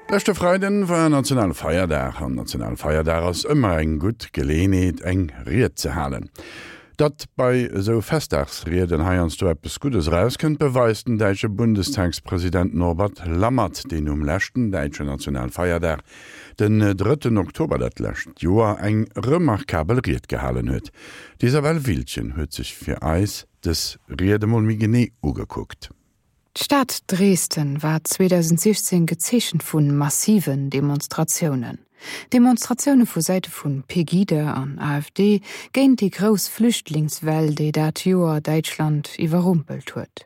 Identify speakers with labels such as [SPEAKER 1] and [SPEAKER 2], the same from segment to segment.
[SPEAKER 1] Leschte Freiden war Nationalfeierdag an Nationalfeierdag ass ëmmer eng gutt Geleeënheet eng Ried ze halen. Datt bei esou Festdagsrieden heiansdo eppes Guddes erauskënnt, beweist den däitsche Bundestagspresident Norbert Lammert, deen um leschten däitschen Nationalfeierdag, den drëtten Oktober dat lescht Joer, eng remarkabel Ried gehalen huet. D'Isabelle Wildgen huet sech fir eis dës Ried emol méi genee ugekuckt.
[SPEAKER 2] D'Stad Dresden war 2016 gezeechent vu massiven Demonstratiounen. Demonstratioune vu Säite vu Pegida an AfD géint déi grouss Flüchtlingswell, déi dat Joer Däitschland iwwerrumpelt huet.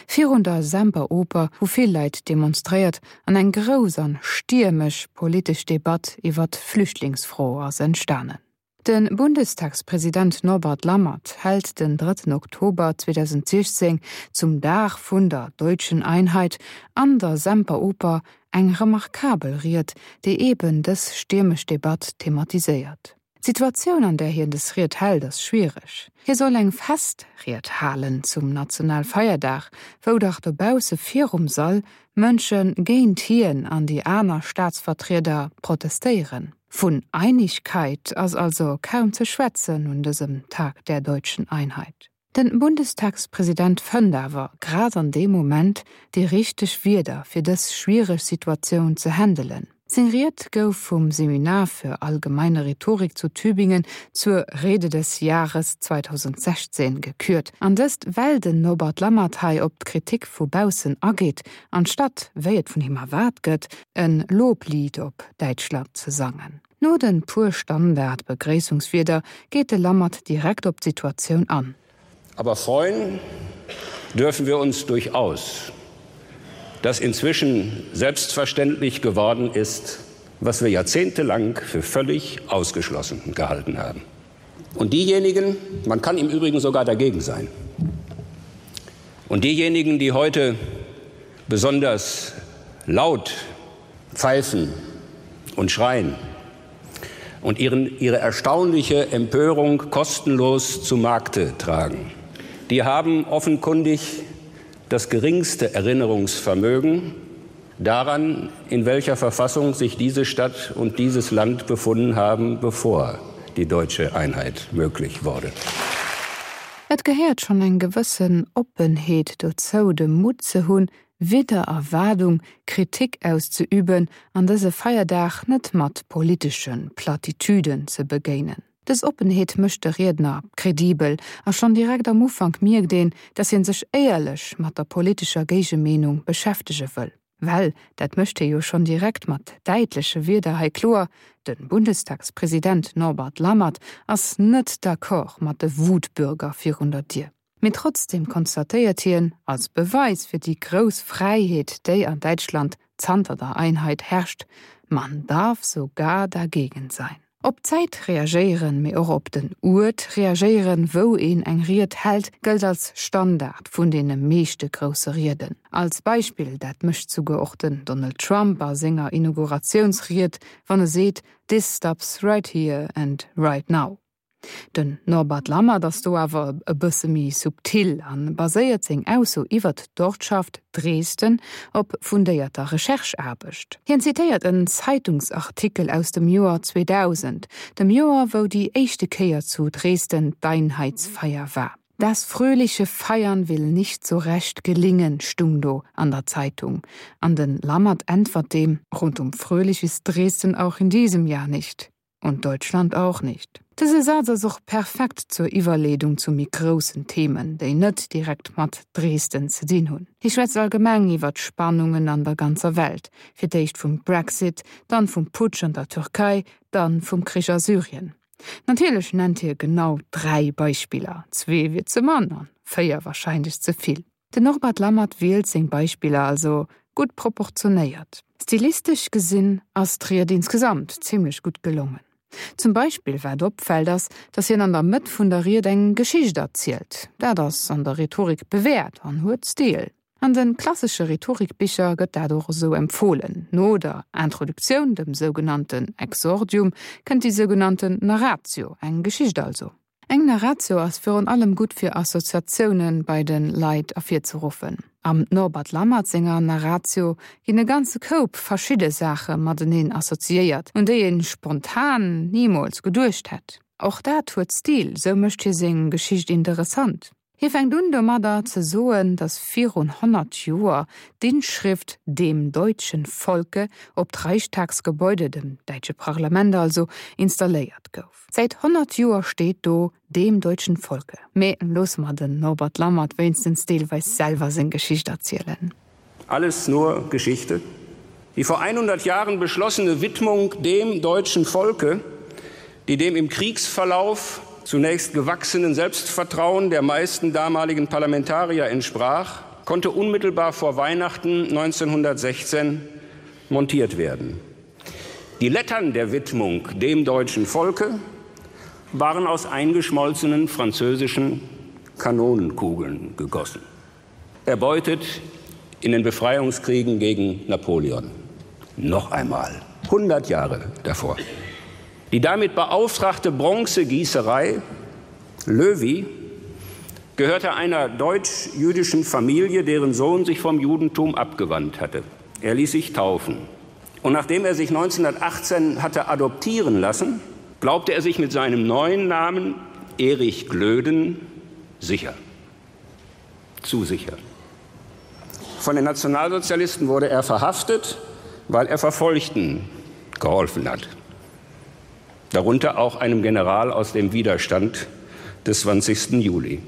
[SPEAKER 2] Virun der Semperoper hu vill Leit demonstréiert an eng grouss an stiermesch politesch Debatt iwwer d'Flüchtlingsfro ass entstanen. De Bundestagspresident Norbert Lammert hält den drëtten Oktober 2016 zum Dag vun der Deutschen Einheit an der Semperoper eng remarkabel Ried, déi eben dës stiermesch Debatt thematiséiert. D'Situatioun, an där hien dës Ried hält, ass schwiereg. Hie soll eng Festried halen zum Nationalfeierdag, wou dach dobausse virum Sall Mënsche géint hien an déi aner Staatsvertrieder protestéieren. Vun Einigkeit ass also kaum ze schwätzen un dësem Tag der deutschen Einheit. Den Bundestagspresident fënnt awer grad an deem Moment déi richteg Wierder fir dës schwiereg Situatioun ze händelen. Seng Ried gouf vum Seminar für allgemeine Rhetorik zu Tübingen zur Rede des Jahres 2016 gekürt, an dëst well den Norbert Lammert hei op d'Kritik vu baussen ageet, anstatt, wéi et vun him erwaart gëtt, en Loblied op Däitschland ze sangen. No den puer Standard-Begréissungswierder geet de Lammert direkt op d'Situatioun an.
[SPEAKER 3] Aber freuen dürfen wir uns durchaus, dass inzwischen selbstverständlich geworden ist, was wir jahrzehntelang für völlig ausgeschlossen gehalten haben. Und diejenigen, man kann im Übrigen sogar dagegen sein, und diejenigen, die heute besonders laut pfeifen und schreien und ihren, ihre erstaunliche Empörung kostenlos zu Markte tragen, die haben offenkundig das geringste Erinnerungsvermögen daran, in welcher Verfassung sich diese Stadt und dieses Land befunden haben, bevor die deutsche Einheit möglich wurde.
[SPEAKER 2] Et gehéiert schonn eng gewëssen Oppenheet dozou, de Mutt ze hunn, widder Erwaardung Kritik auszeüben an dëse Feierdag net mat politesche Plattitüden ze begéinen. Dës Oppenheet mécht de Riedner kredibel a schonn direkt am Ufank mierkt een, datt hien sech éierlech mat der politescher Géigemeenung beschäftege wëll. Well, dat mécht hie jo schonn direkt mat däitleche Wierder hei kloer, de Bundestagspresident Norbert Lammert ass net d'accord mat de Wutbürger virun der Dier. Mee trotzdem konstatéiert hien, als Beweis fir déi grouss Fräiheet, déi an Däitschland zanter der Einheit herrscht, Man darf sogar dagegen sein. Op d'Zäit reagéieren, mee och op den Uert reagéieren, wou een eng Ried hält, gëllt als Standard vun deene meeschte grousse Rieden. Als Beispill, dat mécht souguer och den Donald Trump a senger Inauguratiounsried, wann e seet, This stops right here and right now. Den Norbert Lammert ass do awer e bësse méi subtil a baséiert seng Ausso iwwert d'Ortschaft Dresden op fundéierter Recherche-Aarbecht. Hien zitéiert en Zeitungsartikel aus dem Joer 2000, dem Joer wou déi éischte Kéier zu Dresden d'Einheitsfeier war. Das fröhliche Feiern will nicht so recht gelingen stung do an der Zeitung. An den Lammert äntwert deem, Rundum fröhlich ist Dresden auch in diesem Jahr nicht. Und Deutschland auch nicht. Dëse Saz ass och perfekt zur Iwwerleedung zu méi groussen Themen, déi net direkt mat Dresden ze dinn hunn. Hie schwätzt allgemeng iwwer d'Spannungen an der ganzer Welt, fir d'éischt vum Brexit, dann vum Putsch an der Türkei, dann vum Krich a Syrien. Natierlech nennt hie genau 3 Beispiller, zwee wier ze mann an 4 warscheinlech ze vill. Den Norbert Lammert wielt seng Beispiller also gutt proportionéiert. Stilistesch gesinn ass d'Ried insgesamt zimmlech gutt gelongen. Zum Beispill wat opfält ass, datt hien an der Mëtt vun der Ried eng Geschicht erzielt. Dat ass an der Rhetorik bewäert an huet Stil. An de klassesche Rhetorikbicher gëtt dat och esou empfohlen. No der Introduktioun, dem sougenannten Exordium, kënnt déi sougenannten Narratio, eng Geschicht also. Eng Narratio ass virun allem gutt fir Assoziatioune bei de Leit ervirzeruffen. Am Norbert Lammert senger Narratio ginn e ganze Koup verschidde Saache mateneen assoziéiert, un déi ee spontan nimools geduecht hätt. Och dat huet Stil, sou mécht hie seng Geschicht interessant. Hie fänkt un domadder ze soen, datt virun 100 Joer d'Inschrift Dem deutschen Volke op d'Reichstagsgebäude, dem däitsche Parlament also, installéiert gouf. Säit 100 Joer steet do Dem deutschen Volke. Mee loosse mer den Norbert Lammert wéinstens deelweis selwer seng Geschicht erzielen.
[SPEAKER 3] Alles nur Geschichte. Die vor 100 Jahren beschlossene Widmung dem deutschen Volke, die dem im Kriegsverlauf zunächst gewachsenen Selbstvertrauen der meisten damaligen Parlamentarier entsprach, konnte unmittelbar vor Weihnachten 1916 montiert werden. Die Lettern der Widmung dem deutschen Volke waren aus eingeschmolzenen französischen Kanonenkugeln gegossen erbeutet in den Befreiungskriegen gegen Napoleon. Noch einmal 100 Jahre davor. Die damit beauftragte Bronzegießerei Löwy gehörte einer deutsch-jüdischen Familie, deren Sohn sich vom Judentum abgewandt hatte. Er ließ sich taufen. Und nachdem er sich 1918 hatte adoptieren lassen, glaubte er sich mit seinem neuen Namen Erich Glöden sicher zu sicher. Von den Nationalsozialisten wurde er verhaftet, weil er Verfolgten geholfen hat. Darunter auch einem General aus dem Widerstand des 20. Juli.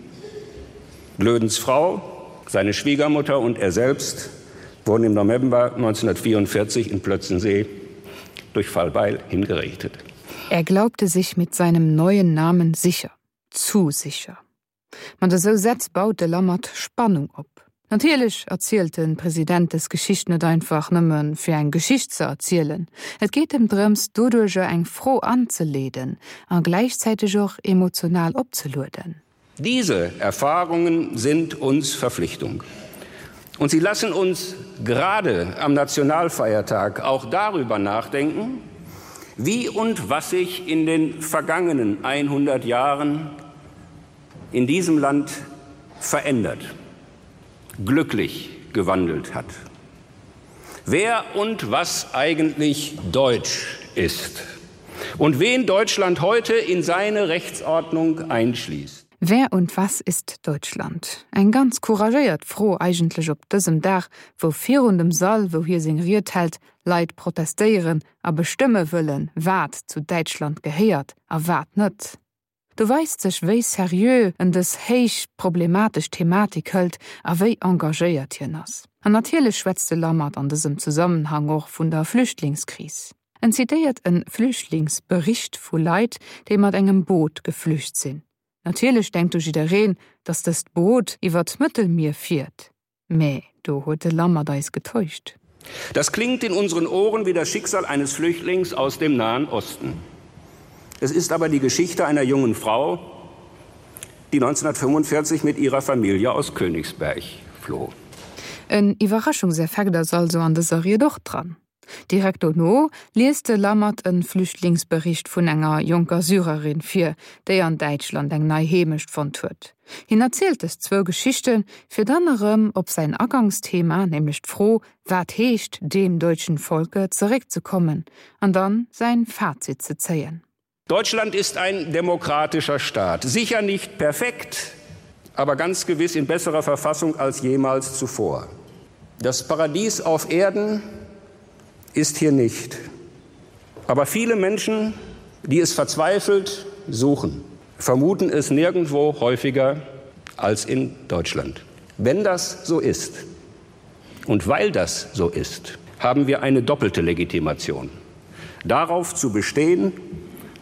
[SPEAKER 3] Glödens Frau, seine Schwiegermutter und er selbst wurden im November 1944 in Plötzensee durch Fallbeil hingerichtet.
[SPEAKER 2] Er glaubte sich mit seinem neuen Namen sicher, zu sicher. Mat esou Sätz baut de Lammert Spannung op. Natierlech erzielt de President des Geschicht net einfach nëmme fir eng Geschicht ze erzielen. Et geet em drëms, doduercher eng Fro anzeleeden a gläichzäiteg och emotional opzelueden.
[SPEAKER 3] Diese Erfahrungen sind uns Verpflichtung. Und sie lassen uns gerade am Nationalfeiertag auch darüber nachdenken, wie und was sich in den vergangenen 100 Jahren in diesem Land verändert, glücklich gewandelt hat. Wer und was eigentlich deutsch ist und wen Deutschland heute in seine Rechtsordnung einschließt.
[SPEAKER 2] Wer und was ist Deutschland? Eng ganz couragéiert Fro eigentlech op dësem Dag, wou virun dem Sall, wou hie seng Ried hält, Leit protestéieren a bestëmme wëllen, wat zu Däitschland gehéiert a wat net. Do weist sech, wéi seriö en dës héich problematesch Thematik hëlt a wéi engagéiert hien ass. An natierlech schwätzt de Lammert an dësem Zesammenhang och vun der Flüchtlingskris. En zitéiert e Flüchtlingsbericht vu Leit, déi mat engem Boot geflücht sinn. Natierlech denkt do jiddereen, datt dëst Boot iwwer d'Mëttelmier fiert. Mä do huet de Lammert eis getäuscht.
[SPEAKER 3] Das klingt in unseren Ohren wie das Schicksal eines Flüchtlings aus dem Nahen Osten. Es ist aber die Geschichte einer jungen Frau, die 1945 mit ihrer Familie aus Königsberg floh.
[SPEAKER 2] En Iwwerraschungseffekt ass also an dëser Ried och dran. Direkt dono liest de Lammert e Flüchtlingsbericht vun enger jonker Syrerin vir, déi an Däitschland eng nei Heemecht fonnt huet. Hien erzielt dës zwou Geschichten, fir dann erëm op säin Agangsthema, nämlech d'Fro Wat heescht dem deutschen Volke? zeréckzekommen an dann säin Fazit ze zéien.
[SPEAKER 3] Deutschland ist ein demokratischer Staat, sicher nicht perfekt, aber ganz gewiss in besserer Verfassung als jemals zuvor. Das Paradies auf Erden ist hier nicht. Aber viele Menschen, die es verzweifelt suchen, vermuten es nirgendwo häufiger als in Deutschland. Wenn das so ist und weil das so ist, haben wir eine doppelte Legitimation. Darauf zu bestehen,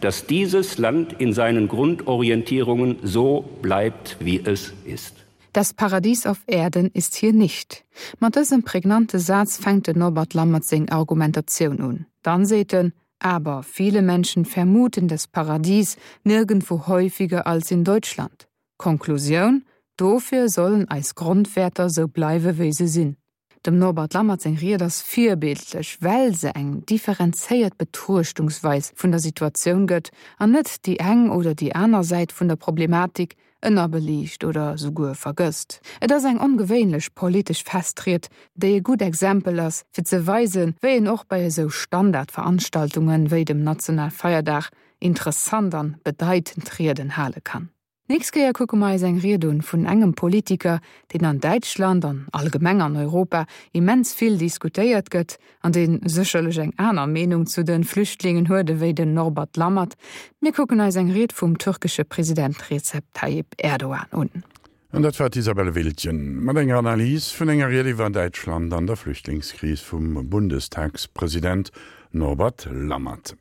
[SPEAKER 3] dass dieses Land in seinen Grundorientierungen so bleibt, wie es ist.
[SPEAKER 2] Das Paradies auf Erden ist hier nicht. Mat dësem prägnante Saz fänkt den Norbert Lammert seng Argumentatioun un. Dann seet en, Aber viele Menschen vermuten das Paradies nirgendwo häufiger als in Deutschland. Konklusioun, Dofir sollen eis Grondwäerter sou bleiwe wéi se sinn. Dem Norbert Lammert seng Ried ass virbildlech, well se eng differenzéiert Betruechtungsweis vun der Situatioun gëtt an net déi eng oder déi aner Säit vun der Problematik ënnerbeliicht oder souguer vergësst. Et ass eng ongewéinlech politesch Festried, déi e gutt Exempel ass, fir ze weisen, wéi een och bei esou Standardveranstaltungen wéi dem Nationalfeierdag interessant an bedeitend Rieden hale kann. Nächst Kéier kucke mer eis eng Ried un vun engem Politiker, deen an Däitschland an allgemeng an Europa immens vill diskutéiert gëtt an dee sécherlech eng aner Meenung zu de Flüchtlingen huet ewéi den Norbert Lammert. Mir kucken eis eng Ried vum türkesche President Recep Tayyip Erdogan un.
[SPEAKER 1] An dat war d'Isabelle Wiltgen mat enger Analys vun enger Ried iwwer Däitschland an der Flüchtlingskris vum Bundestagspresident Norbert Lammert.